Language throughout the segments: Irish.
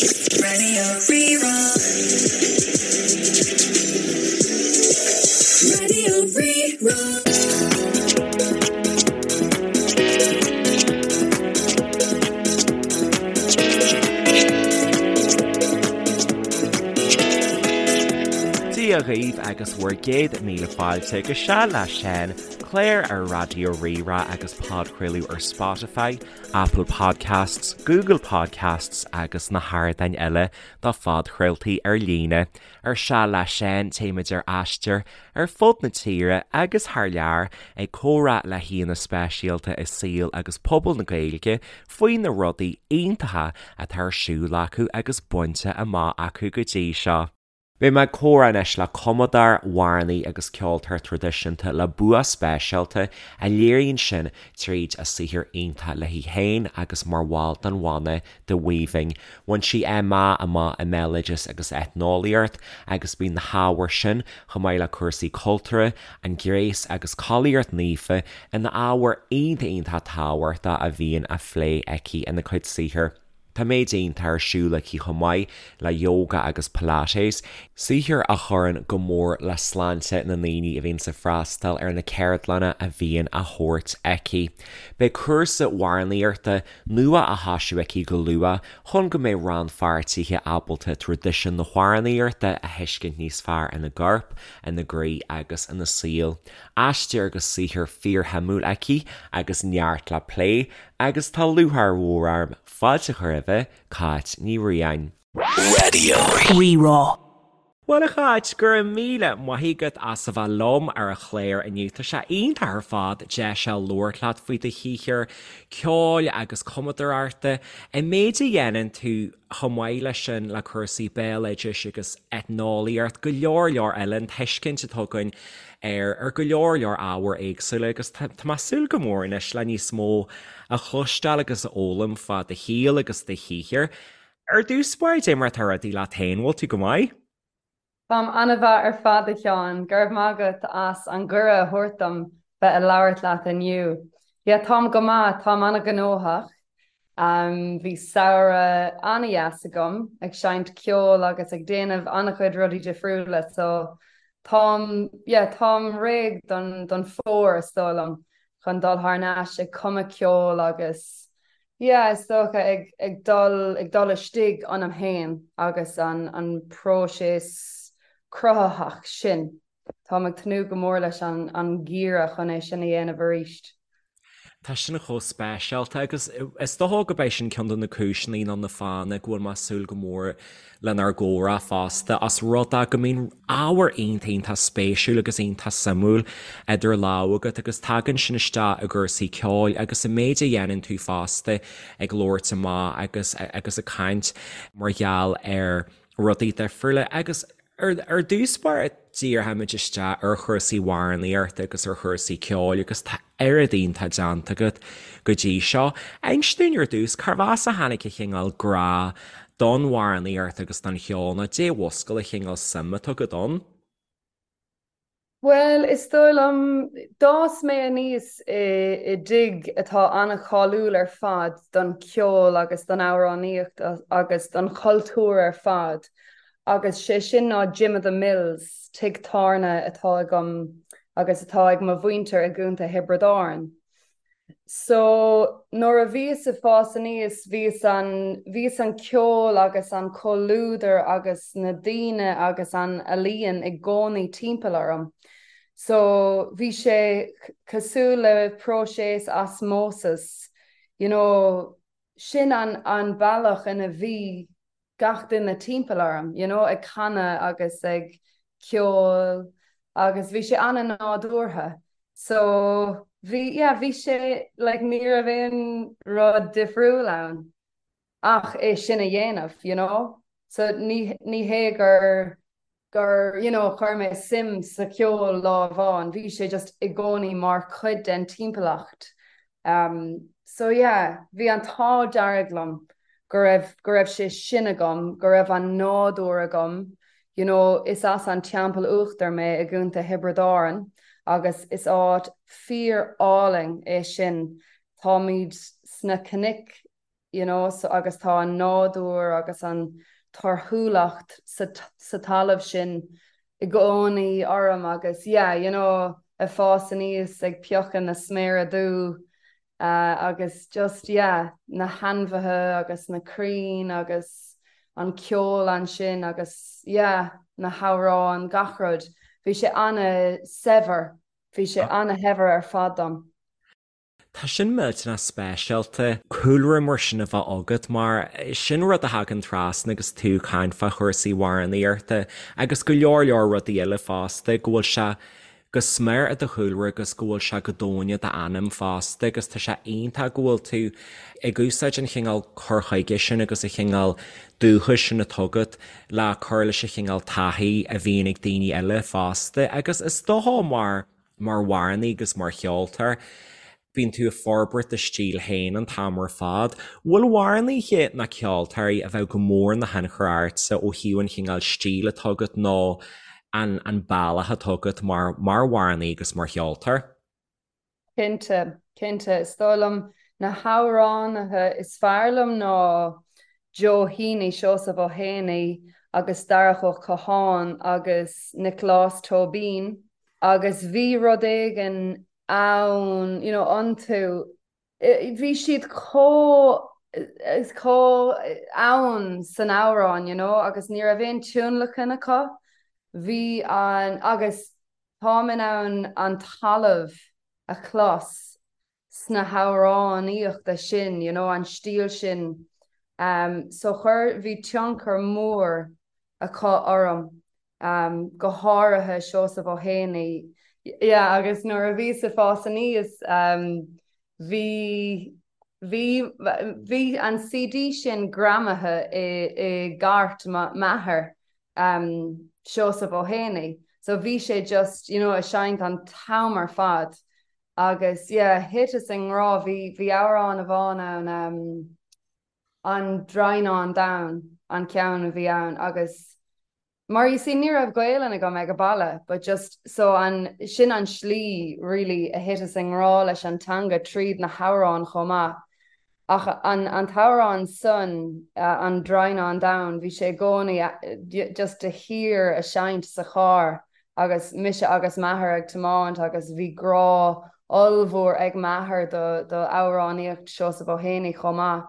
Radio Rí-Rá. Radio Rí-Rá. Dia dhaoibh agus bhur gcéad míle fáilte go Seal le Seán, clár ar Raidió Rí-Rá agus podchraoladh ar Spotify, Apple Podcasts, Google Podcasts agus na hardáin eile do phodchraoltaí ar líne. Ar Seal le Seán téimid ar aistear ar fud na tíre agus thar lear ag comhrá le haíonna speisialta i saol agus pobal na Gaeilge faoi na rudaí iontacha atá ar siúl acu agus bainte amach acu go dtí seo. Beidh mé ag comhrá anois le cumadóir, amhránaí agus ceoltóir traidisiúnta le bua speisialta a léiríonn sin tríd a saothar iontach léi féin agus mar bhall den bhanna The Weaving. Bhain sí MA amach i mBéaloideas agus Eitneolaíocht agus bíonn na hábhair sin, chomh maith le cúrsaí cultúrtha, an gréas agus collaíocht naofa ina ábhair iontach iontach tábhachtach a bhíonn á phlé aici ina cuid saothair. Tá méid iontach ar siúl aici chomh maith le yoga agus pilates, saothar a chuireann go mór le sláinte na ndaoine a bhíonns ag freastal ar na ceardlanna a bhíonn á thabhairt aici. Beidh cúrsa amhránaíochta nua á thosú aici go luath chun go mbeidh rannpháirtithe ábalta traidisiún na hamhránaíochta a thuiscint níos fearr ina gcorp, ina gcroí agus ina saol. Aistear agus saothar fíorshuimiúil aici agus neart le plé Agus tá lúcháir mhór orm fáilte a chur roimhe, Cáit Ní Riain. Radio Rí-Rá. Bhuel a Cháit, go raibh míle maith agat as a bheith liom ar an chlár inniu. Tá sé iontach ar fad deis a labhairt leat faoi do shaothar ceoil agus cumadóireachta, an méid a dhéanann tú chomh maith leis sin le cúrsaí béaloidis agus eitneolaíocht, go leor leor eile, an tuiscint atá againn ar ar go leor leor ábhair éagsúla agus tá mé ag súil go mór anois le níos mó a chloisteáil agus a fhoghlaim fá do shaol agus do shaothar. Ar dtús báire, dé mar atá rudaí leat féin, bhfuil tú go maith? Táim an-mhaith ar fad a Sheáin, go raibh maith agat as an gcuireadh a thabhairt dom bheith ag labhairt leat inniu. Yeah, táim go maith, táim an-ghnóthach. Bhí samhradh an-dheas agam ag seinnt ceoil agus ag déanamh an-chuid rudaí difriúla so táim, yeah, táim réidh don don fómhar is dóigh liom chun dul thar n-ais ag cumadh ceoil agus Yeah, is dócha ag ag dul ag dul istigh ionam féin agus an an próiseas cruthaitheach sin. Táim ag tnúth go mór leis an an ngeimhreadh chun é sin a dhéanamh arís. Tá sin chomh speisialta agus is dócha go mbeidh sin ceann de na cúiseanna nó na fáthanna go bhfuil mé ag súil go mór lenár gcomhrá fosta, os rud é go mbíonn ábhar iontach iontach spéisiúil agus iontach suimiúil idir lámha agat agus tagann sin isteach i gcúrsaí ceoil agus an méid a dhéanann tú fosta ag labhairt amach agus agus ag caint mar gheall ar rudaí difriúla agus ar dtús báire díreoimid isteach ar chúrsaí amhránaíochta agus ar chúrsaí ceoil agus tá oiread iontach déanta agat go dtí seo. Inis dúinn ar dtús, cárbh as a tháinig an chineál grá don amhránaíocht agus don cheol nó dé mhúscail an chineál suim atá agat ann? Bhuel, is dóigh liom, d'fhás mé aníos i dtigh atá an-cháiliúil ar fad don cheol agus don amhránaíocht agus don chultúr ar fad agus sé sin ná Jim of the Mills, tigh tábhairne atá agam agus atá ag mo mhuintir i gContae Thiobraid Árann. So, nuair a bhíos ag fás aníos, bhíos an, bhíos an ceol agus an comhluadar agus na daoine agus an ealaíon i gcónaí timpeall orm. So, bhí sé cosúil le próiseas osmosis, you know, sin an, an bealach ina bhí gach duine timpeall orm, you know, ag canadh agus ag ceol agus bhí sé an-nádúrtha. So bhí, yeah, bhí sé, like, ní raibh aon rud difriúil ann ach é sin a dhéanamh, you know. So ní, ní hé gur, gur, you know, chuir mé suim sa cheol lá amháin, bhí sé just i gcónaí mar chuid den timpeallacht. Um, so yeah, bhí an t-ádh dearg liom go raibh, go raibh sé sin agam, go raibh an nádúr agam, you know, is as an Teampall Uachtar mé i gContae Thiobraid Árann agus is áit fíor álainn é sin. Táimid sna cnoic. you know, so agus tá an nádúr agus an torthúlacht sa, sa talamh sin i gcónaí orm agus yeah, you know, ag fás aníos ag piocadh na sméara dubh uh, agus just yeah, na hainmhithe agus na crainn agus an ceol ansin agus yeah, na hamhráin gach rud. Bhí sé ana-shaibhir, bhí sé ana-shaibhir ar fad dom. Tá sin millteanach speisialta, cúlra mar sin a bheith agat mar sin rud a thagann trasna agus tú ag caint fá chúrsaí amhránaíochta agus go leor leor rudaí eile fosta, go bhfuil sé go smior i do chúlra agus go bhfuil sé go domhain i d'anam fosta agus tá sé iontach go bhfuil tú ag úsáid an chineál cur chuige sin agus an chineál dúchais sin atá agat le cur leis an chineál taithí a bhíonn ag daoine eile fosta agus is dócha mar mar amhránaí agus mar cheoltóir, bíonn tú ag forbairt do stíl féin an t-am ar fad. Bhfuil amhránaithe ná ceoltóirí a bheadh go mór ina thionchar ortsa ó thaobh an chineál stíl atá agat nó an an bealach atá agat mar mar amhránaí agus mar cheoltóir? Cinnte, cinnte. Is dóigh liom na hamhránaithe is fearr liom ná Joe Heaney, Seosamh Ó hÉanaí agus Darach Ó Catháin agus Nioclás Tóibín agus bhí rud éigin ann, you know, iontu, bhí siad chomh, chomh ann san amhrán, you know, agus ní raibh aon tionlacan acu, bhí an, agus táim in ann an talamh a chlos sna hamhránaíochta sin, you know, an stíl sin. Um, so chuir, bhí tionchar mór acu orm, um, go háirithe Seosamh Ó hÉanaí. Yeah, agus nuair a bhíos ag fás aníos, um, bhí, bhí, bhí an CD sin greamaithe i, i gcairt m'athar, um, Seosamh Ó hÉanaí. So bhí sé just, you know, ag seinnt an t-am ar fad. Agus yeah, thiteas i ngrá, bhí, bhí amhrán amháin ann, um, An Draighneán Donn an ceann a bhí ann agus mar you see ní raibh Gaelainn agam ag an baile but just so an, sin an slí really a thiteas i ngrá leis an teanga tríd na hamhráin chomh maith. Ach an an t-amhrán san, An Draighneán Donn, bhí sé i gcónaí just de shíor a seinnt sa charr agus mise agus m'athair ag tiomáint agus bhí grá ollmhór ag m'athair do do amhránaíocht Seosamh Ó hÉanaí chomh maith.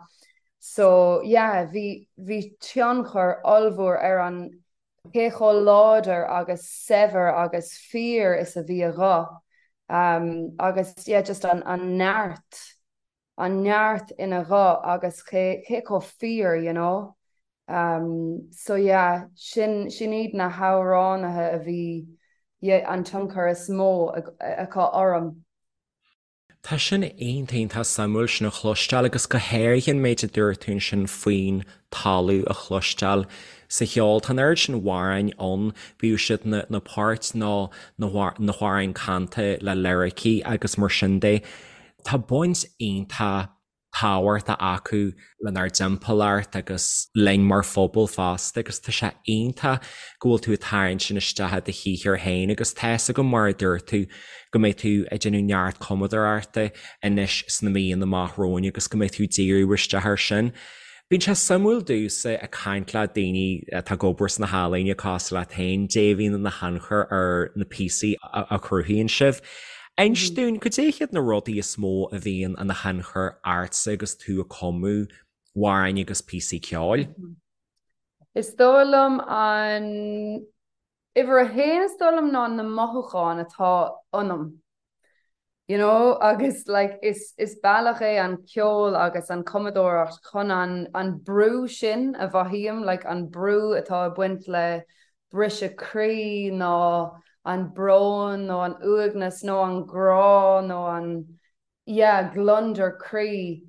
So yeah, bhí bhí tionchar ollmhór ar an cé chomh láidir agus saibhir agus fíor is a bhí a ghuth agus yeah just an an neart an neart ina ghuth agus cé cé chomh fíor you know. Um, so yeah, sin sin iad na hamhránaithe a bhí yeah, an tionchar is mó acu orm. Tá sin iontach iontach suimiúil sin a chloisteáil agus go háirithe an méid a dúirt tú ansin faoin talamh a chloisteáil sa cheol. Tá an oiread sin amhráin ann, bíodh siad na na poirt nó na na hamhráin canta le liricí agus mar sin de. Tá baint iontach tábhachtach acu lenár dtimpeallacht agus linn mar phobal fosta agus tá sé iontach go bhfuil tú ag tarraingt sin isteach i do shaothar féin agus tá 'fhios agam mar a dúirt tú go mbeidh tú ag déanamh neart cumadóireachta anois sna míonna amach romhainn agus go mbeidh tú ag díriú isteach air sin. Bíonn sé suimiúil domhsa ag caint le daoine atá ag obair sna healaíona cosúil leat féin, dé a bhíonn ina thionchar ar na píosaí a chruthaíonn sibh. Inis dúinn, cad é hiad na rudaí is mó a bhíonn ina thionchar ortsa agus tú ag cumadh amhráin agus píosaí ceoil? Is dóigh liom an uimhir a haon is dóigh liom ná na mothúcháin atá ionam. You know agus like is is bealach é an ceol agus an cumadóireacht chun an an brú sin a mhothaím, like an brú atá ag baint le briseadh croí nó an brón nó an uaigneas nó an grá nó an yeah gliondar croí.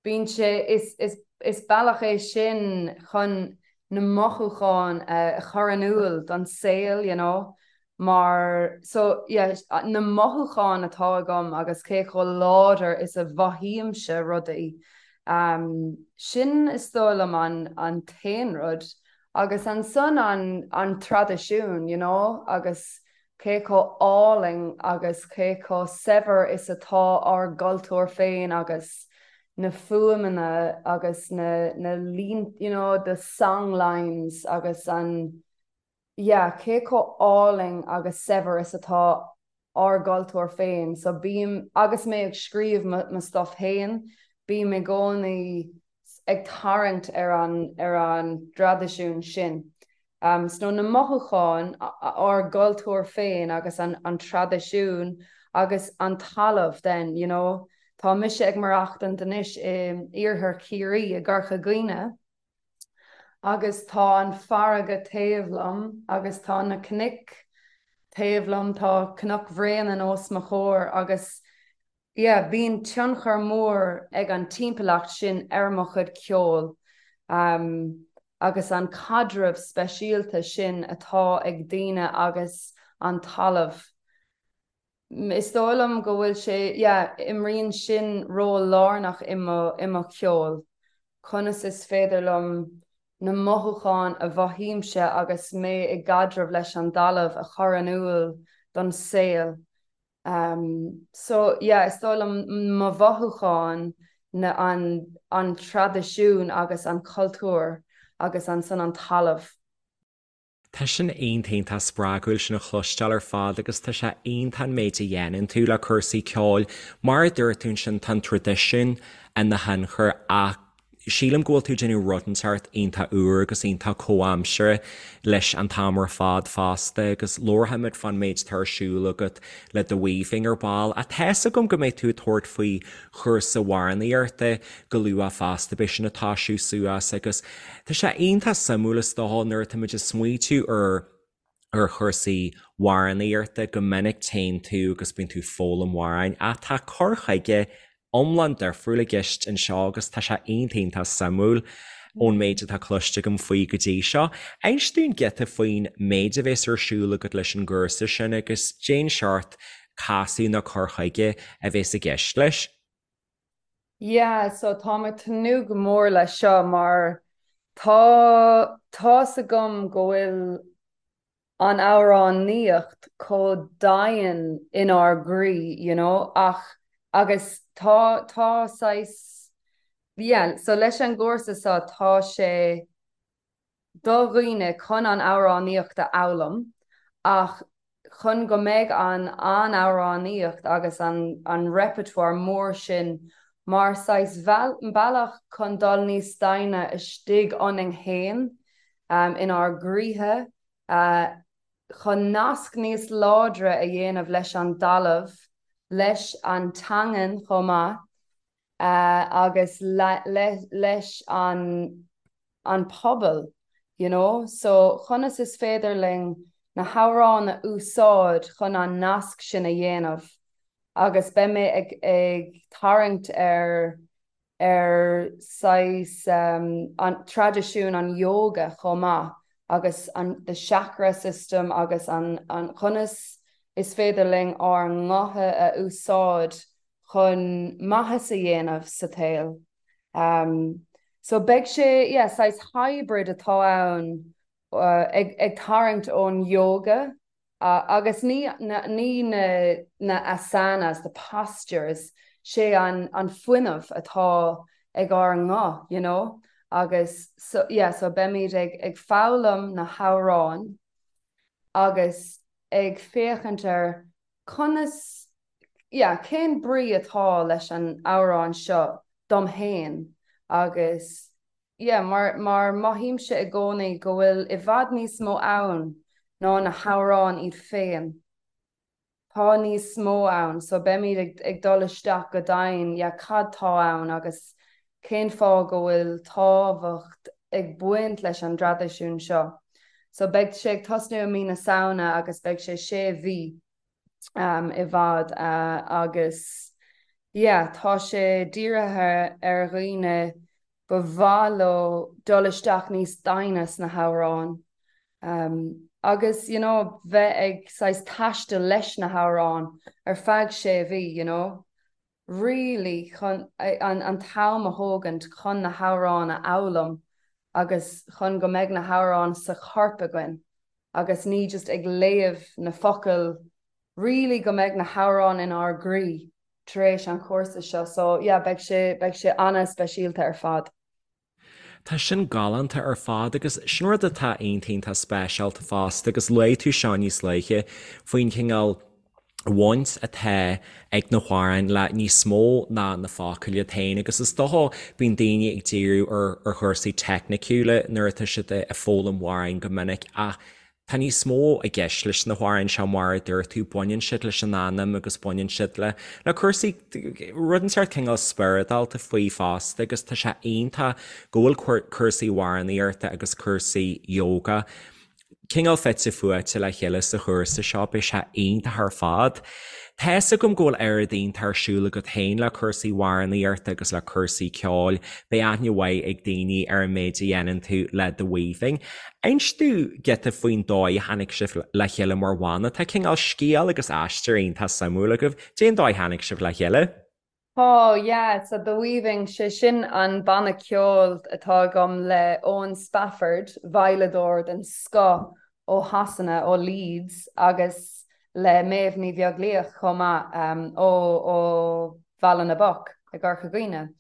Bíonn sé, is, is, is bealach é sin chun na mothúcháin a chur in iúl don saol, you know, mar, so, yeah, na mothúcháin atá agam agus cé chomh láidir is a mhothaímse rudaí, um, sin is dóigh liom an, an t-aon rud. Agus ansan an, an traidisiún, you know, agus cé chomh álainn agus cé chomh saibhir is atá ár gcultúr féin agus. na fuaimeanna agus na na lín you know the song lines agus an yeah cé chomh álainn agus saibhir is atá ár gcultúr féin. So bím, agus mé ag scríobh mo stuff féin, bím i gcónaí ag tarraingt ar an ar an dtraidisiún sin. So na mothúcháin, ár gcultúr féin agus an an traidisiún agus an talamh then, you know. Tá mise ag maireachtaint anois in iarthar Chiarraí i gCorca Dhuibhne agus tá an farraige taobh liom agus tá na cnoic taobh liom, tá Cnoc Bhréanainn os mo chomhair agus yeah bíonn tionchar mór ag an timpeallacht sin ar mo chuid ceoil agus an caidreamh speisialta sin atá ag daoine agus an talamh. Is dóigh liom go bhfuil sé, yeah, imríonn sin ról lárnach i mo, i mo cheol. Conas is féidir liom na mothúcháin a mhothaímse agus mé i gcaidreamh leis an dtalamh a chur in iúl don saol. So, yeah, is dóigh liom mo mhothúcháin, na, an, an traidisiún agus an cultúr agus ansan an talamh. Tá sin iontach iontach spreagúil sin a chloisteáil ar fad agus tá sé iontach an méid a dhéanann tú le cúrsaí ceoil. Mar a dúirt tú ansin tá an traidisiún ina thionchar ach sílim go bhfuil tú ag déanamh rud inteacht iontach úr agus iontach comhaimseartha leis an t-am ar fad fosta agus labharfaimid fán méid atá ar siúl agat le The Weaving ar ball. Ach tá's agam go mbeidh tú ag tabhairt faoi chúrsa amhránaíochta go luath fosta, beidh sin ag toisiú suas agus tá sé iontach suimiúil is dócha nuair atá muid ag smaoitiú ar ar chúrsaí amhránaíochta go minic téann tú agus bíonn tú ag foghlaim amhráin ach tá cur chuige iomlán difriúil i gceist anseo agus tá sé iontach iontach suimiúil ón méid atá cloiste agam faoi go dtí seo. Inis dúinn giota faoin méid a bhéas ar siúl agat leis an gcúrsa sin agus cén seort casadh nó cur chuige a bhéas i gceist leis. Yeah, so táim ag tnúth go mór leis seo mar tá tá's agam go bhfuil an amhránaíocht chomh domhain inár gcroí, you know, ach agus tá tá saghas yeah, so leis an gcúrsa seo tá sé do dhaoine chun an amhránaíocht a fhoghlaim ach chun go mbeidh an an amhránaíocht agus an an repertoire mór sin mar saghas bealach chun dul níos doimhne istigh ionainn fhéin, inár gcroíthe, chun nasc níos láidre a dhéanamh leis an dtalamh, leis an teangain chomh maith. agus leis an an pobal you know so conas is féidir linn na hamhráin a úsáid chun an nasc sin a dhéanamh agus beidh mé ag ag tarraingt ar ar saghas an traidisiún an yoga chomh maith agus an the chakra system agus an an conas is féidir linn ár ngutha a úsáid chun maitheas a dhéanamh sa tsaol. So beidh sé, yeah, saghas hybrid atá ann ag ag tarraingt ón yoga agus ní ní na na asanas, the postures, sé an an fuinneamh atá ag ár nguth, you know, agus so yeah, so beimid ag ag foghlaim na hamhráin agus ag féachaint ar conas yeah, cén brí atá leis an amhrán seo dom fhéin agus yeah, mar, mar mothaímse i gcónaí go bhfuil i bhfad níos mó ann ná na hamhráin iad féin. Tá níos mó ann so beimid ag, ag dul isteach go domhain, yeah, cad tá ann agus cén fáth go bhfuil tábhacht ag baint leis an dtraidisiún seo. So beidh sé ag tosnú i mí na Samhna agus beidh sé sé mhí. i bhfad agus yeah tá sé dírithe ar dhaoine ba mhaith leo dul isteach níos doimhne sna hamhráin agus you know bheith ag saghas taisteal leis na hamhráin ar feadh sé mhí you know really chun an an t-am a thógaint chun na hamhráin a fhoghlaim agus chun go mbeidh na hamhráin sa chorp againn agus ní just ag léamh na focail really go mbeidh na hamhráin inár gcroí. tar éis an chúrsa seo so yeah beidh sé beidh sé ana-speisialta ar fad. Tá sin galánta ar fad agus sin rud atá iontach iontach speisialta fosta agus luaigh tú seo níos luaithe faoin chineál bhaint atá ag na hamhráin le níos mó ná na focail iad féin agus is dócha bíonn daoine ag díriú ar ar chúrsaí teicniciúla nuair atá siad ag foghlaim amhráin go minic ach Tá níos mó i gceist leis na hamhráin seo mar a dúirt tú, baineann siad leis an anam agus baineann siad le le cúrsaí, rud inteacht cineál spioradálta faoi fosta agus tá sé iontach go bhfuil cúrsaí amhránaíochta agus cúrsaí yoga cineál fite fuaite le chéile sa chúrsa seo, beidh sé iontach ar fad. Tá fhios agam go bhfuil oiread iontach ar siúl agat féin le cúrsaí amhránaíochta agus le cúrsaí ceoil. Beidh aithne mhaith ag daoine ar an méid a dhéanann tú le The Weaving. Inis domh giota faoin dóigh a tháinig sibh le chéile mar bhanna. Tá cineál scéal agus aistear iontach suimiúil agaibh. Cén dóigh a tháinig sibh le chéile? Oh yeah, so The Weaving, sé sin an banna ceoil atá agam le Eoin Spafford, veidhleadóir den scoth ó Shasana, ó Leeds, agus le Méabh Ní Bheaglaoich chomh maith, ó ó Bhaile na bPoc i gCorca Dhuibhne.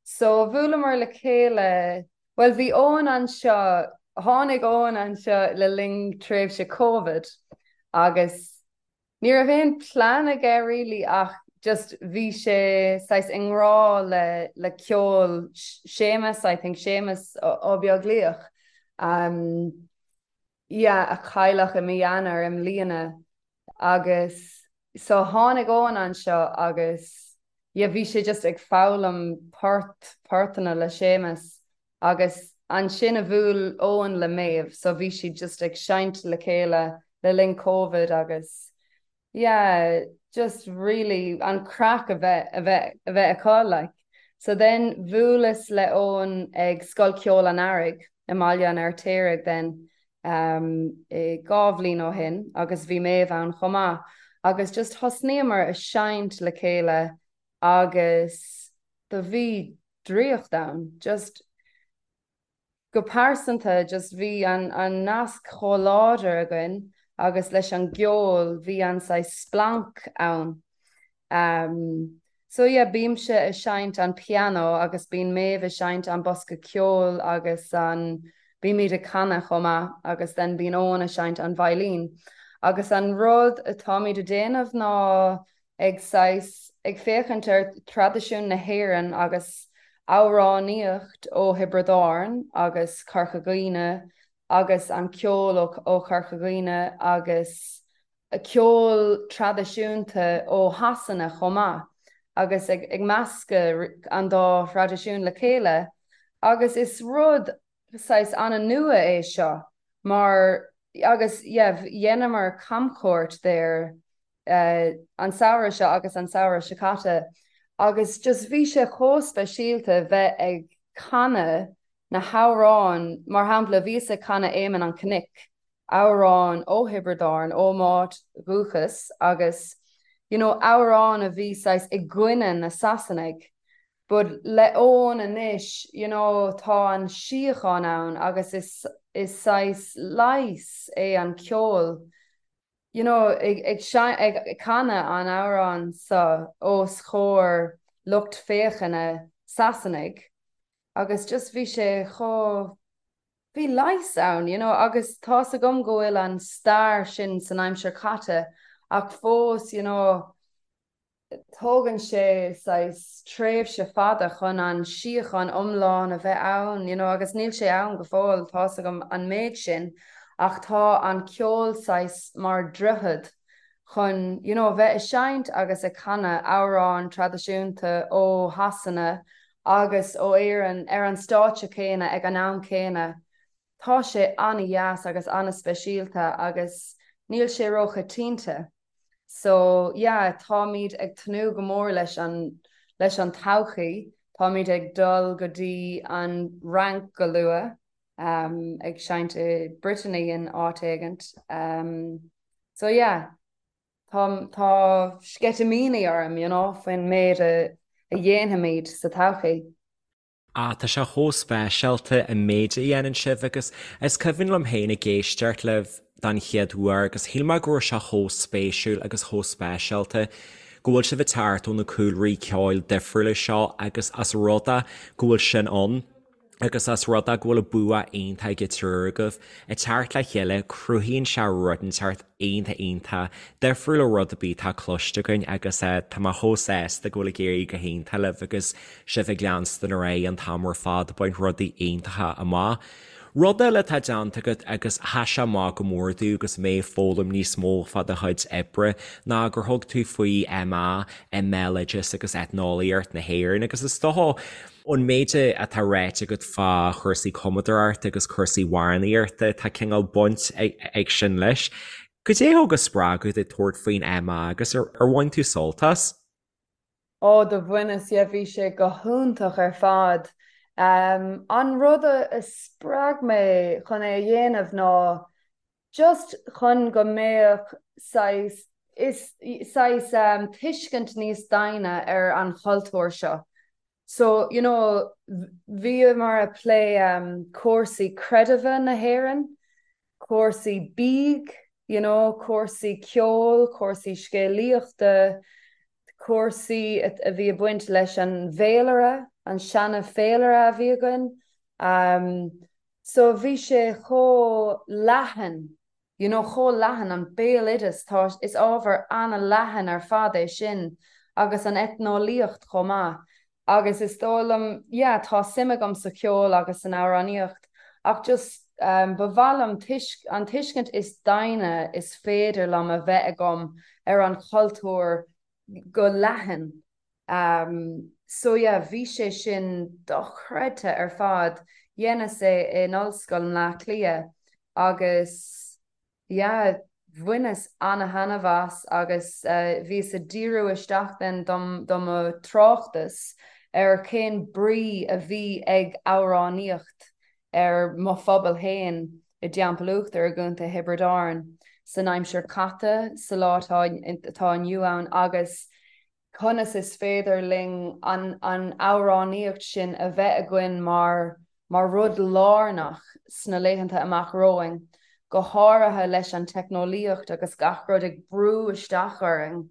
So bhuaileamar le chéile, bhuel bhí Eoin anseo, tháinig Eoin anseo le linn tréimhse Covid agus Ní raibh aon plean aige really ach just bhí sé saghas i ngrá le le ceol Séamus, I think, Séamus Ó Beaglaoich, um yeah, a cailleadh i mí Eanáir i mbliana agus so tháinig Eoin anseo agus yeah bhí sé just ag foghlaim port, portanna le Séamus Agus ansin a bhuail Eoin le Méabh so bhí siad just ag seinnt le chéile le linn Covid agus yeah just really an craic a bheith a bheith a bheith acu like. So then bhuaileas le Eoin ag Scoil Ceoil an Earraigh i mBaile an Fheirtéaraigh then um i 2 bhliain ó shin agus bhí Méabh ann chomh maith agus just thosnaíomar a seinnt le chéile agus do bhí draíocht ann. Just go pearsanta just bhí an an nasc chomh láidir againn agus leis an gceol bhí an saghas splanc ann. Um so yeah bímse ag seinnt an pianó agus bíonn Méabh ag seinnt an bosca ceoil agus an bímid ag canadh chomh maith agus then bíonn Eoin ag seinnt an veidhlín. Agus an rud atáimid ag déanamh ná ag saghas ag féachaint ar thraidisiún na hÉireann agus amhránaíocht ó Thiobraid Árann agus Corca Dhuibhne agus an ceol ó Chorca Dhuibhne agus ceol traidisiúnta ó Shasana chomh maith agus ag ag meascadh an dá thraidisiún le chéile agus is rud saghas an-nua é seo mar agus yeah dheineamar camchuairt there an samhradh seo agus an samhradh seo caite agus just bhí sé chomh speisialta bheith ag canadh na hamhráin, mar shampla bhíos ag canadh Éamonn an Chnoic, amhrán ó Thiobraid Árann, ó m'áit dhúchais agus you know amhrán a bhí saghas i gcoinne na Sasanaigh but le Eoin anois you know tá an síocháin ann agus is is saghas leigheas é an ceol you know, ag, ag, ag canadh an amhrán seo os chomhair lucht féachana Sasanaigh agus just bhí sé chomh, bhí leigheas ann, you know, agus tá's agam go bhfuil an stair sin san aimsir chaite ach fós, you know, tógann sé saghas tréimhse fada chun an síocháin iomlán a bheith ann, you know, agus níl sé ann go fóill, tá's agam an méid sin, ach tá an ceol saghas mar droichead chun, you know, bheith ag seinnt agus ag canadh amhráin traidisiúnta ó Shasana agus ó Éirinn ar an stáitse céanna ag an am céanna. Tá sé an-dheas agus an-speisialta agus níl sé róchoitianta. So yeah, táimid ag tnúth go mór leis an leis an todhchaí, táimid ag dul go dtí an Fhrainc go luath, um, ag seinnt i Brittany in áit éigint. Um, so yeah, tá tá sceitimíní orm, you know, faoin méid a a dhéanfaimid sa todhchaí. Ah, tá sé chomh speisialta an méid a dhéanann sibh agus is cuimhin liom féin ag éisteacht libh don chéad uair agus shíl mé go raibh sé chomh spéisiúil agus chomh speisialta. go bhfuil sibh ag teacht ó na cúlraí ceoil difriúla seo agus as rud é go bhfuil sin ann agus as rud é go bhfuil bua iontach ag an triúr agaibh ag teacht le chéile, cruthaíonn sé rud inteacht iontach iontach difriúil ó rud ar bith atá cloiste againn agus tá mé chomh sásta go bhfuil ag éirí go hiontach libh agus sibh ag leanstan ar aghaidh an t-am ar fad ag baint rudaí iontacha amach. Rud eile atá déanta agat agus sheas sé amach go mór domh agus mé ag foghlaim níos mó fá do chuid oibre ná gur thug tú faoi MA i mBéaloideas agus Eitneolaíocht na hÉireann agus is dócha ón méid atá ráite agat fá chúrsaí cumadóireachta agus cúrsaí amhránaíochta tá cineál baint ag sin leis. Goidé a thug an spreagadh duit tabhairt faoin MA agus ar bhain tú sult as? Ó do bhaineas, yeah, bhí sé go hiontach ar fad. An rud a spreag mé chun é a dhéanamh ná just chun go mbeadh saghas, is, saghas tuiscint níos doimhne ar an chultúr seo. So, you know, bhíomar ag plé cúrsaí creidimhe na hÉireann, cúrsaí bídh, you know, cúrsaí ceoil, cúrsaí scéalaíochta, cúrsaí a bhí ag baint leis an bhféilire, an seana féilire a bhí againn. So bhí sé chomh leathan, you know, chomh leathan, an béaloideas, tá, is ábhar an-leathan ar fad é sin agus an eitneolaíocht chomh maith. Agus is dóigh liom, yeah, tá suim agam sa cheol agus san amhránaíocht ach just ba mhaith liom tuisc, an tuiscint is doimhne is féidir liom a bheith agam ar an chultúr go leathan. So yeah, bhí sé sin dochreidte ar fad. Dheineas é in Ollscoil Bhleá Cliath agus yeah, bhaineas ana-thaitneamh as agus bhíos ag díriú isteach then dom do mo tráchtas ar cén brí a bhí ag amhránaíocht ar mo phobal féin i dTeampall Uachtair i gContae Thiobraid Árann san aimsir caite, sa lá atá inniu ann agus conas is féidir linn an amhránaíocht sin a bheith againn mar mar rud lárnach sna laethanta amach romhainn, go háirithe leis an teicneolaíocht agus gach rud ag brú isteach orainn.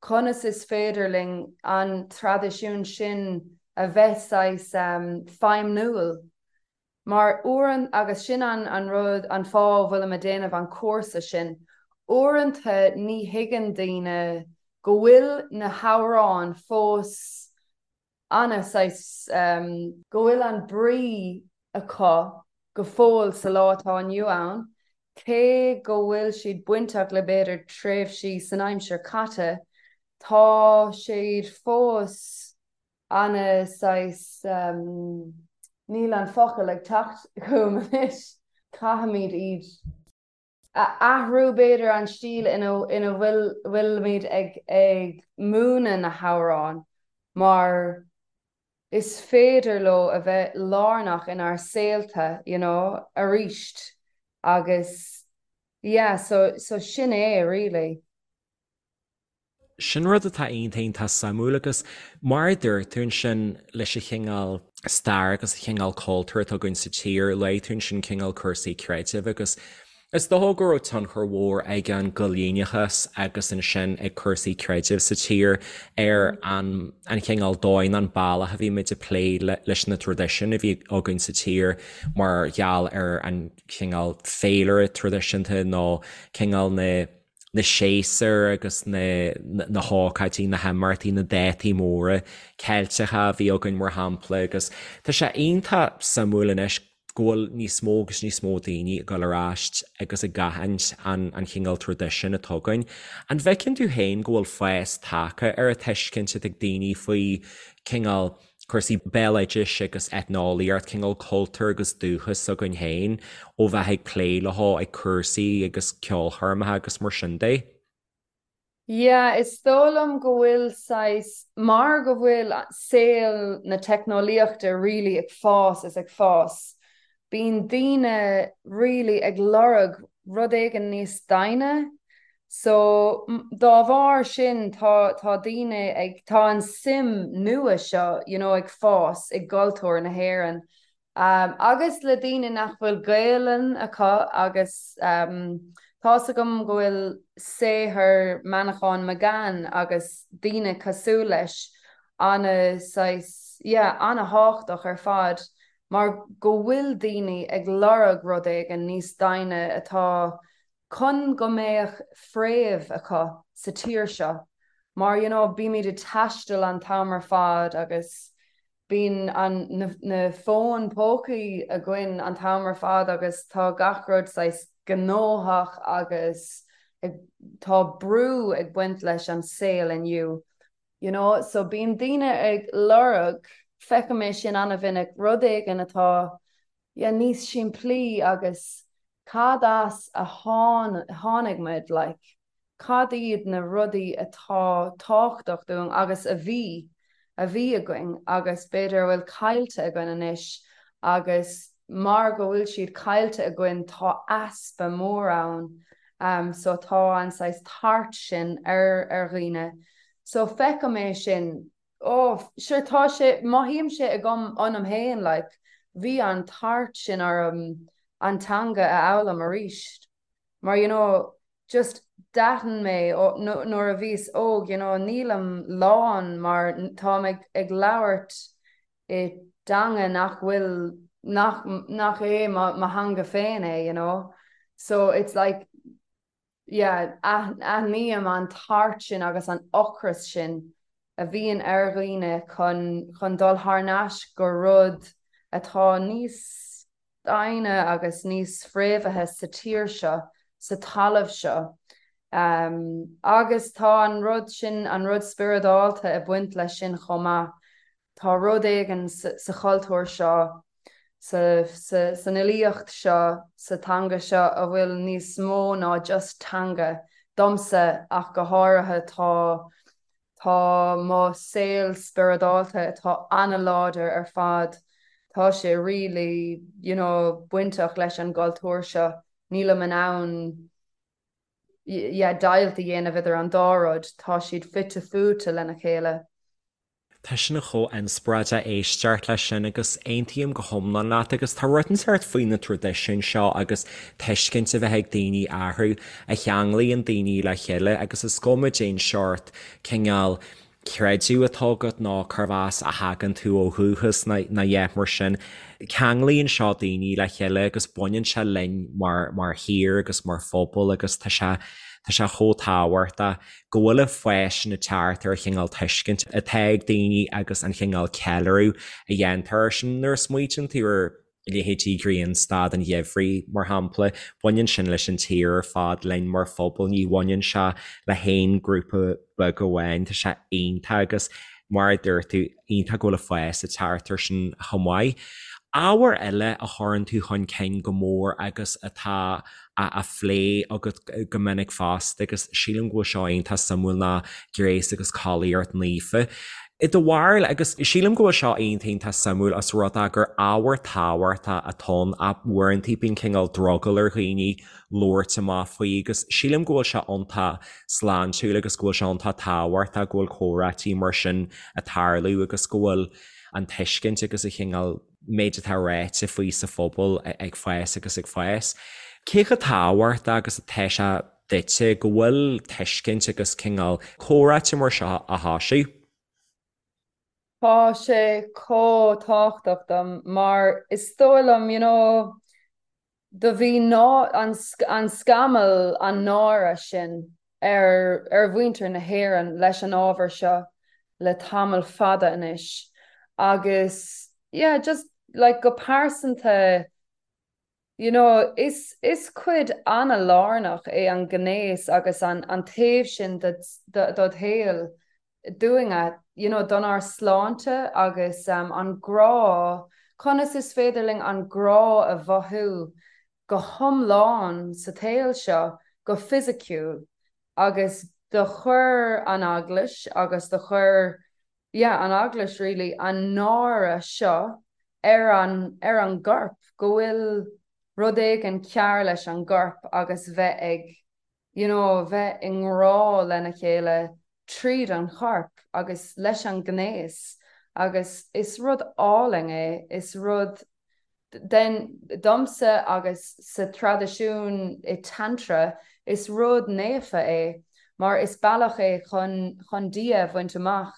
Conas is féidir linn an traidisiún sin a bheith saghas feidhmiúil Mar uaireanta, agus sin an an rud, an fáth a bhfuilim ag déanamh an cúrsa sin, uaireanta ní thuigeann daoine go bhfuil na hamhráin fós ana saghas, go bhfuil an brí acu go fóill sa lá atá inniu ann, cé go bhfuil siad bainteach le b'fhéidir tréimhsí san aimsir caite, tá siad fós ana saghas, níl an focal ag teacht chugam anois, caithfimid iad a athrú b'fhéidir, an stíl ina ina bhfuil bhfuilimid ag ag múineadh na hamhráin mar is féidir leo a bheith lárnach inár saolta you know arís agus yeah so so sin é really. Sin rud atá iontach iontach suimiúil agus mar a dúirt tú ansin leis an chineál stair agus an chineál cultúir atá againn sa tír, luaigh tú ansin cineál cúrsaí creidimh agus is dócha go raibh tionchar mhór ag an gcoilíneachas agus ansin ag cúrsaí creidimh sa tír ar an an chineál dóigh nó an bealach a bhí muid ag plé leis na traidisiúin a bhí againn sa tír mar gheall ar an chineál féilire traidisiúnta nó cineál na na séasúir agus na na hócáidí, na himeachtaí, na dátaí móra Ceilteacha a bhí againn mar shampla agus tá sé iontach suimiúil anois go bhfuil níos mó agus níos mó daoine ag dul ar ais agus ag aithint an an chineál traidisiúin atá againn. An bhfeiceann tú féin go bhfuil fás tagtha ar an tuiscint atá ag daoine faoi cineál cúrsaí béaloidis agus eitneolaíocht, cineál cultúr agus dúchas s'againn féin ó bheith ag plé leo ag cúrsaí agus ceolchoirmeacha agus mar sin de. Yeah, is dóigh liom go bhfuil saghas, mar go bhfuil saol na teicneolaíochta really ag fás is ag fás, bíonn daoine really ag lorg rud éigin níos doimhne so dá bharr sin tá tá daoine ag tá an suim nua seo you know ag fás i gcultúr na hÉireann um, agus le daoine nach bhfuil Gaelainn acu agus um, Tá's agam go bhfuil saothar Manchán Magan agus daoine cosúil leis ana saghas, yeah, ana-thábhachtach ar fad mar go bhfuil daoine ag lorg rud éigin níos doimhne atá chun go mbeadh fréamh acu sa tír seo mar you know bímid ag taisteal an t-am ar fad agus bíonn an na fóin pócaí againn an t-am ar fad agus tá gach rud saghas gnóthach agus ag tá brú ag baint leis an saol inniu you know so bíonn daoine ag lorg feicim é sin an-mhinic rud éigin atá yeah níos simplí agus cad as a tháinig muid like cad iad na rudaí atá tábhachtach dúinn agus a bhí a bhí againn agus b'fhéidir a bhfuil caillte againn anois agus mar go bhfuil siad caillte againn tá easpa mór ann um so tá an saghas tart sin ar ar dhaoine so feicim é sin oh sure tá sé mothaím sé agam ionam féin like bhí an tart sin orm an teanga a fhoghlaim arís mar you know just d'aithin mé nuair a bhíos óg you know nílim lán mar táim ag ag labhairt i dteanga nach bhfuil nach nach é mo mo theanga féin é you know so it's like yeah, aithním an tart sin agus an ocras sin a bhíonn ar dhaoine chun chun dul thar n-ais go rud atá níos doimhne agus níos fréamhaithe sa tír seo, sa talamh seo. Um, agus tá an rud sin, an rud spioradálta ag baint leis sin chomh maith. Tá rud éigin sa chultúr seo san fhilíocht seo, sa teanga seo a bhfuil níos mó ná just teanga, domsa ach go háirithe tá tá mo saol spioradálta atá an-láidir ar fad, tá sé really you know bainteach leis an gcultúr seo, nílim in ann yeah deighilt a dhéanamh idir an dá rud, tá siad fite fuaite lena chéile. Tá sin chomh inspioráideach éisteacht leis sin agus aontaím go hiomlán leat agus tá rud inteacht faoi na traidisiúin seo agus tuiscint a bheith ag daoine orthu a cheanglaíonn daoine le chéile agus is cuma cén seort cineál creideamh atá agat nó cérbh as a thagann tú ó dhúchas nó a dhath mar sin. Ceanglaíonn seo daoine le chéile agus baineann sé linn mar mar thír agus mar phobal agus tá sé tá sé chomh tábhachtach. go bhfuil an fás sin ag teacht ar an chineál tuiscint atá ag daoine agus an chineál ceiliúradh a dhéantar air sin. Nuair a smaoitíonn tú ar leithéidí Grianstad an Gheimhridh, mar shampla, baineann sin leis an tír ar fad, linn mar phobal, ní bhaineann sé le haon grúpa beag amháin. Tá sé iontach agus mar a dúirt tú, iontach go bhfuil an fás ag teacht air sin chomh maith. Ábhar eile a chuireann tú chun cinn go mór agus atá á phlé agat go minic fosta agus sílim go bhfuil seo iontach suimiúil ná gnéas agus collaíocht naofa. I do bharúil, agus sílim go bhfuil seo iontach iontach suimiúil os rud é gur ábhar tábhachtach atá ann ach uaireanta bíonn cineál drogall ar dhaoine labhairt amach faoi agus sílim go bhfuil sé iontach sláintiúil agus go bhfuil sé iontach tábhachtach go bhfuil comhráití mar sin ag tarlú agus go bhfuil an tuiscint agus an chineál méid atá ráite faoi sa phobal ag fás agus ag fás. Cé chomh tábhachtach agus atá sé duitse go bhfuil tuiscint agus cineál comhráite mar seo á thoisiú? Tá sé chomh tábhachtach dom mar is dóigh liom, you know, do bhí ná an an scamall an náire sin ar ar mhuintir na hÉireann leis an ábhar seo le tamall fada anois agus yeah just like go pearsanta you know is is cuid an-lárnach é an gnéas agus an an taobh sin de dod shaol dúinne, you know, donár sláinte agus an grá, conas is féidir linn an grá a mhothú go hiomlán sa tsaol seo, go fisiciúil agus do chuir an Eaglais agus do chuir, yeah, an Eaglais really, an náire seo ar an, ar an gcorp, go bhfuil rud éigin cearr leis an gcorp agus bheith ag you know, bheith i ngrá lena chéile tríd an chorp agus leis an ngnéas agus is rud álainn é, is rud. Den, domsa agus sa traidisiún i Tantra, is rud naofa é mar is bealach é chun chun Dia a bhaint amach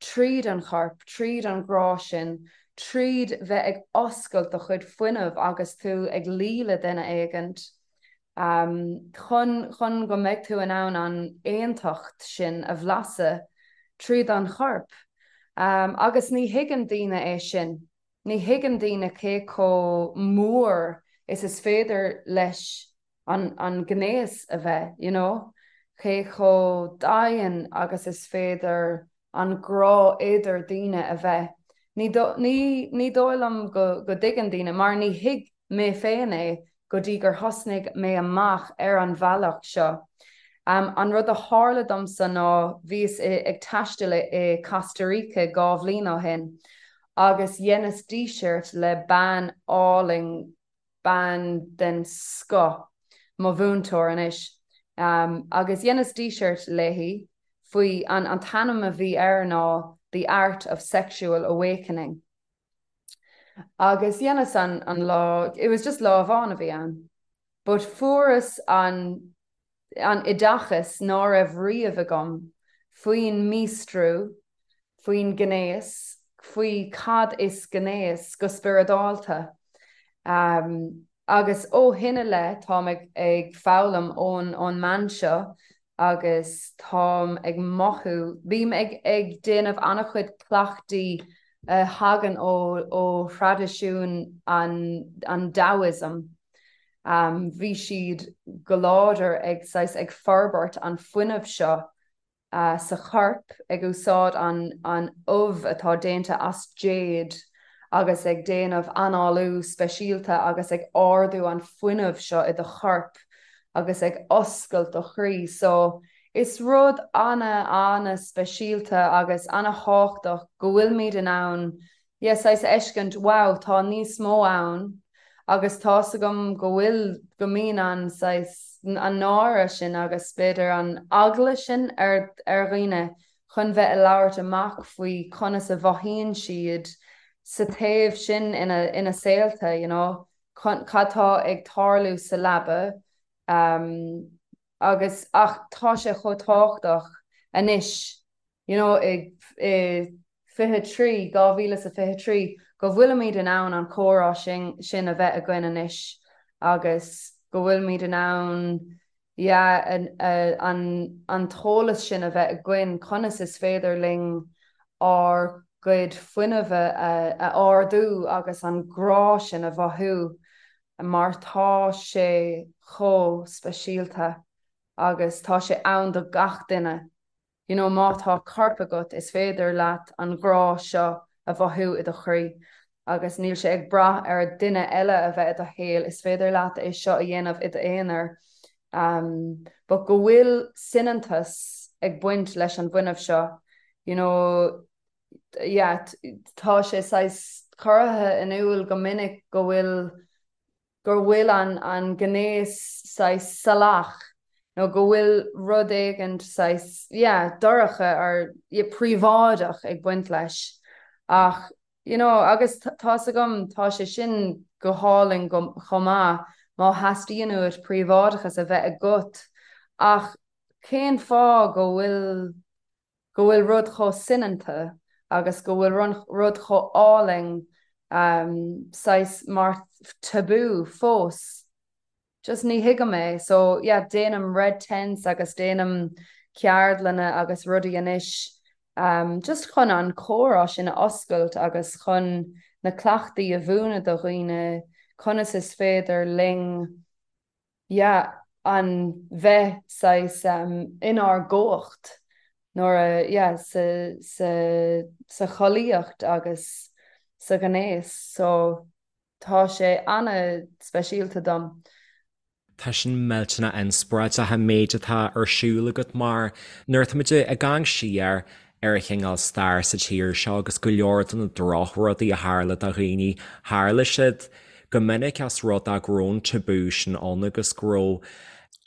tríd an chorp, tríd an ghrá sin, tríd bheith ag oscailt do chuid fuinnimh agus tú ag luí le duine éigint, chun chun go mbeidh tú in ann an aontacht sin a bhlaiseadh tríd an chorp. Agus ní thuigeann daoine é sin. Ní thuigeann daoine cé chomh mór is is féidir leis an an gnéas a bheith, you know, cé chomh domhain agus is féidir an grá idir daoine a bheith. Ní ní ní dóigh liom go go dtuigeann daoine, mar ní thuig mé féin é go dtí gur thosnaigh mé amach ar an bhealach seo. An rud a tharla domsa ná bhíos ag taisteal i Costa Rica 2 bhliain ó shin agus dheineas díseart le bean álainn, bean den scoth, mo mhúinteoir anois, agus dheineas díseart léi faoi, an t-ainm a bhí air ná The Art of Sexual Awakening. Agus dheineas an an lá, it was just lá amháin a bhí ann, but fuaireas an an oideachas ná raibh riamh agam faoin míostrú, faoin gnéas, faoi cad is gnéas go spioradálta. Agus ó shin i leith táim ag ag foghlaim ón ón mbean seo agus táim ag mothú, bím ag ag déanamh an-chuid cleachtaí a thagann ó ó thraidisiún an an Taoism. Bhí siad go láidir ag saghas ag forbairt an fuinneamh seo sa chorp, ag úsáid an ubh atá déanta as jade agus ag déanamh análú speisialta agus ag ardú an fuinneamh seo i do chorp agus ag oscailt do chroí. So, is rud ana, ana speisialta agus ana thábhachtach go bhfuilimid in ann yeah, saghas a fheiscint, wow, tá níos mó ann agus tá's agam go bhfuil, go mbíonn an saghas, an náire sin agus b'fhéidir an eagla sin ar, ar dhaoine chun bheith ag labhairt amach faoi conas a mhothaíonn siad sa taobh sin ina, ina saolta, you know, cad tá ag tarlú sa leaba um, agus, ach tá sé chomh tábhachtach anois you know, i 23, 2023, go bhfuilimid in ann an comhrá sin sin a bheith againn anois agus go bhfuilimid in ann yeah, an, an t-eolas sin a bheith againn conas is féidir linn ár gcuid fuinnimh a, a ardú agus an grá sin a mhothú mar tá sé chomh speisialta agus tá sé ann do gach duine. You know, má tá corp agat, is féidir leat an grá seo a mhothú i do chroí agus níl sé ag brath ar duine eile a bheith i do shaol, is féidir leat é seo a dhéanamh i d'aonar. Um, but go bhfuil soineantas ag baint leis an bhfuinneamh seo, you know, yeah, tá sé saghas curtha in iúl go minic go bhfuil gur bhfuil an an gnéas saghas salach nó go bhfuil rud éigint saghas yeah dorcha or yeah príobháideach ag baint leis ach you know agus tá's agam tá sé sin go hálainn go chomh maith má theastaíonn uait príobháideachas a bheith agat ach cén fáth go bhfuil go bhfuil rud chomh soineanta agus go bhfuil rud chomh álainn saghas mar tabú fós. Just ní thuigim é. So yeah, déanaim red tents agus déanaim ceardlanna agus rudaí anois um, just chun an comhrá sin a oscailt agus chun na cleachtaí a mhúineadh do dhaoine conas is féidir linn yeah, an bheith saghas inár gcumhacht nuair a, yeah, sa, sa, sa chollaíocht agus sa ghnéas. So tá sé ana-speisialta dom. Tá sin millteanach inspioráideach an méid atá ar siúl agat mar nuair atáimid ag amharc siar ar an chineál stair sa tír seo agus go leor de na drochrudaí a tharla do dhaoine, tharla siad go minic as rud é go raibh an tabú sin ann agus go raibh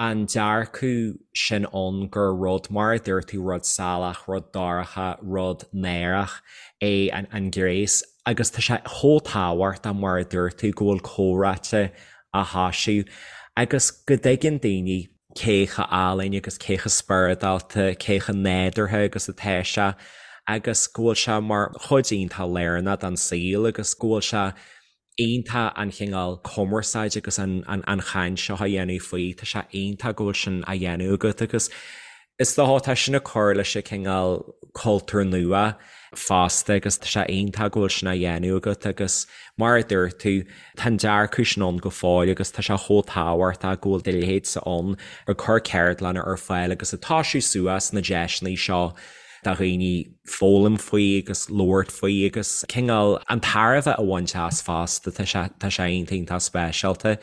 an dearcadh sin ann gur rud, mar a dúirt tú, rud salach, rud dorcha, rud náireach é an gnéas. Agus tá sé chomh tábhachtach, mar a dúirt tú, go bhfuil comhráite á thoisiú agus go dtuigeann daoine cé chomh álainn agus cé chomh spioradálta, cé chomh nádúrtha agus atá sé agus go bhfuil sé mar chuid iontach lárnach den saol agus go bhfuil sé iontach an chineál cumarsáid agus an chaint seo a dhéanamh faoi. Tá sé iontach go bhfuil sin á dhéanamh agat agus is dócha tá sin ag cur leis an cineál cultúr nua fosta agus tá sé iontach go bhfuil sin á dhéanamh agat agus mar a dúirt tú, tá an dearcadh sin ann go fóill agus tá sé chomh tábhachtach go bhfuil do leithéidse ann ag cur ceardlanna ar fáil agus ag toisiú suas na deiseanna seo do dhaoine foghlaim faoi agus labhairt faoi agus cineál an tairbhe a bhaint as fosta, tá sé tá sé iontach iontach speisialta.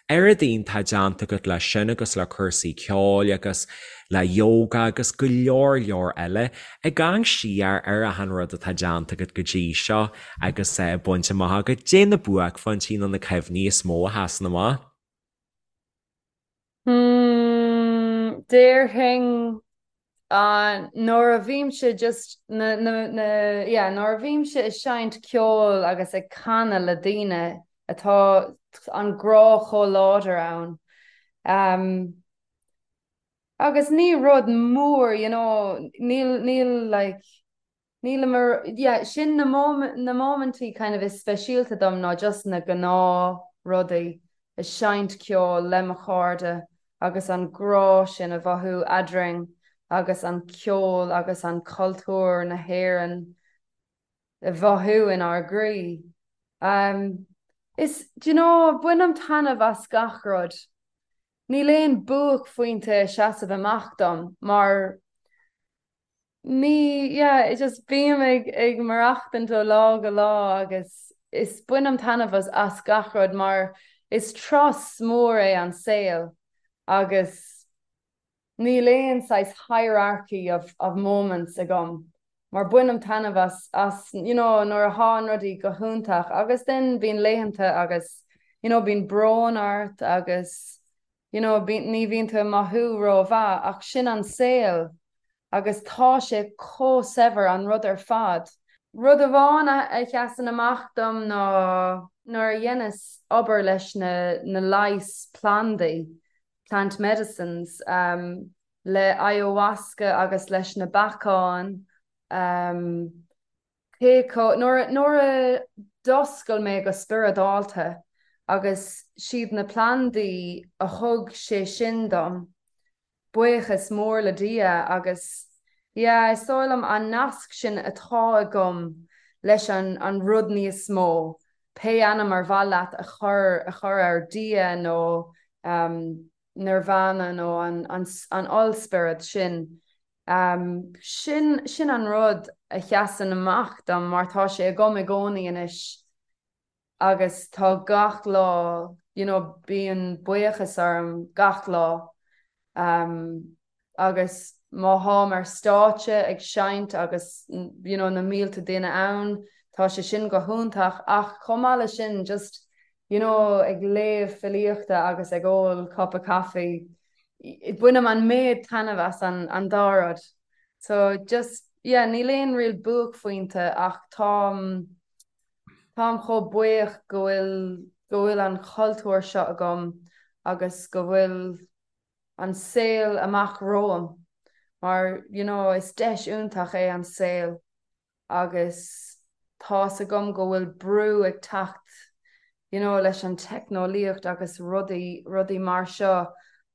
Oiread iontach déanta agat leis sin agus le cúrsaí ceoil agus le yoga agus go leor leor eile. Ag amharc siar ar achan rud atá déanta agat go dtí seo agus bainte amach agat, caidé na buaicphointí nó na cuimhní is mó a sheasann amach? Hmm, déarfainn nuair a bhímse just na, na, na, yeah, nuair a bhímse ag seinnt ceoil agus ag canadh le daoine atá an grá chomh láidir ann. Um, agus ní rud mór, you know, níl, níl like, Nílim ar, yeah, sin na na móimintí kind of is speisialta dom ná just na gnáth rudaí, ag seinnt ceoil le mo chairde agus an grá sin a mhothú eadrainn agus an ceol agus an cultúr na hÉireann a mhothú inár gcroí. Um, is, do you know, bainim taitneamh as gach rud. Níl aon buaicphointe ag seasamh amach dom mar Ní, yeah, just bím ag ag maireachtaint ó lá go lá agus is bainim taitneamh as as gach rud mar is turas mór é an saol agus níl aon saghas hierarchy of of moments agam mar bainim taitneamh as as you know nuair atá an rudaí go hiontach agus then bíonn laethanta agus you know bíonn brón ort agus you know, ní bhíonn tú ag mothú rómhaith ach sin an saol agus tá sé chomh saibhir an rud ar fad. Rud amháin a sheasann amach dom ná nuair a dheineas obair leis na na leighis plandaí, plant medicines, um, le ayahuasca agus leis na beacáin, um, Cé chomh, nuair, nuair a d'oscail mé go spioradálta agus siad na plandaí a thug sé sin dom, buíochas mór le Dia agus yeah, is dóigh liom an nasc sin atá agam leis an, an rud níos mó, pé ainm ar mhaith leat a chur, a chur air, Dia nó um, Nirvana nó an, an, an ollspiorad sin, Sin, sin an rud a sheasann amach dom mar tá sé agam i gcónaí anois agus tá gach lá, you know, bíonn buíochas orm gach lá. Agus má tháim ar stáitse ag seinnt agus, you know, na mílte duine ann, tá sé sin go hiontach ach chomh maith leis sin just, you know, ag léamh filíochta agus ag ól cupa caife, bainim an méid taitneamh as an dá rud. So just, yeah, níl aon real buaicphointe ach táim, táim chomh buíoch go bhfuil, go bhfuil an cultúr seo agam agus go bhfuil an saol amach romham mar, you know, is deis iontach é an saol. agus tá's agam go bhfuil brú ag teacht you know leis an teicneolaíocht agus rudaí, rudaí mar seo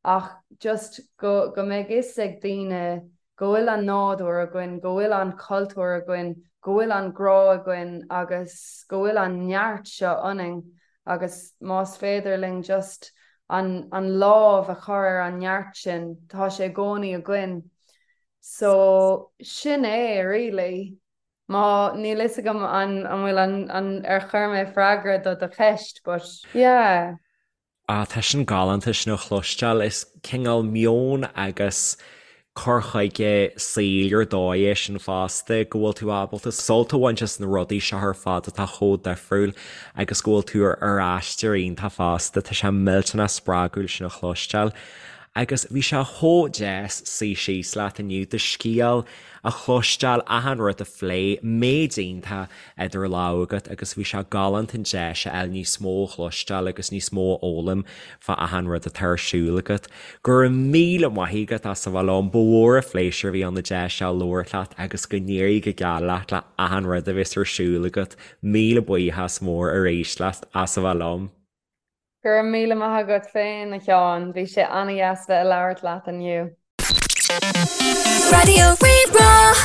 ach just go, go mbeidh fhios ag daoine go bhfuil an nádúr againn, go bhfuil an cultúr againn, go bhfuil an grá againn agus go bhfuil an neart seo ionainn agus más féidir linn just an, an lámh a chur ar an neart sin, tá sé i gcónaí againn. So, sin é, really. Má, níl fhios agam an an bhfuil an an ar chuir mé freagra do do cheist, but yeah. Ah, tá sin galánta sin a chloisteáil. Is cineál meon agus cur chuige saoil ar dóigh é sin fosta, go bhfuil tú ábalta sult a bhaint as na rudaí seo ar fad atá chomh difriúil agus go bhfuil tú ar aistear iontach fosta. Tá sé millteanach spreagúil sin a chloisteáil. Agus bhí sé chomh deas suí síos leat inniu, do scéal a chloisteáil, achan rud a phlé, méid iontach idir lámha agat agus bhí sé galánta an deis a fháil níos mó a chloisteáil agus níos mó a fhoghlaim fá achan rud atá ar siúl agat. Go raibh míle maith agat as a bheith liom, ba mhór an phléisiúr a bhí ann an deis seo labhairt leat agus go n-éirí go geal leat le achan rud a bheas ar siúl agat. Míle buíochas mór arís leat as a bheith liom. Go raibh míle maith agat féin, a Sheáin. Bhí sé an-dheas bheith ag labhairt leat inniu. Raidió Rí-Rá.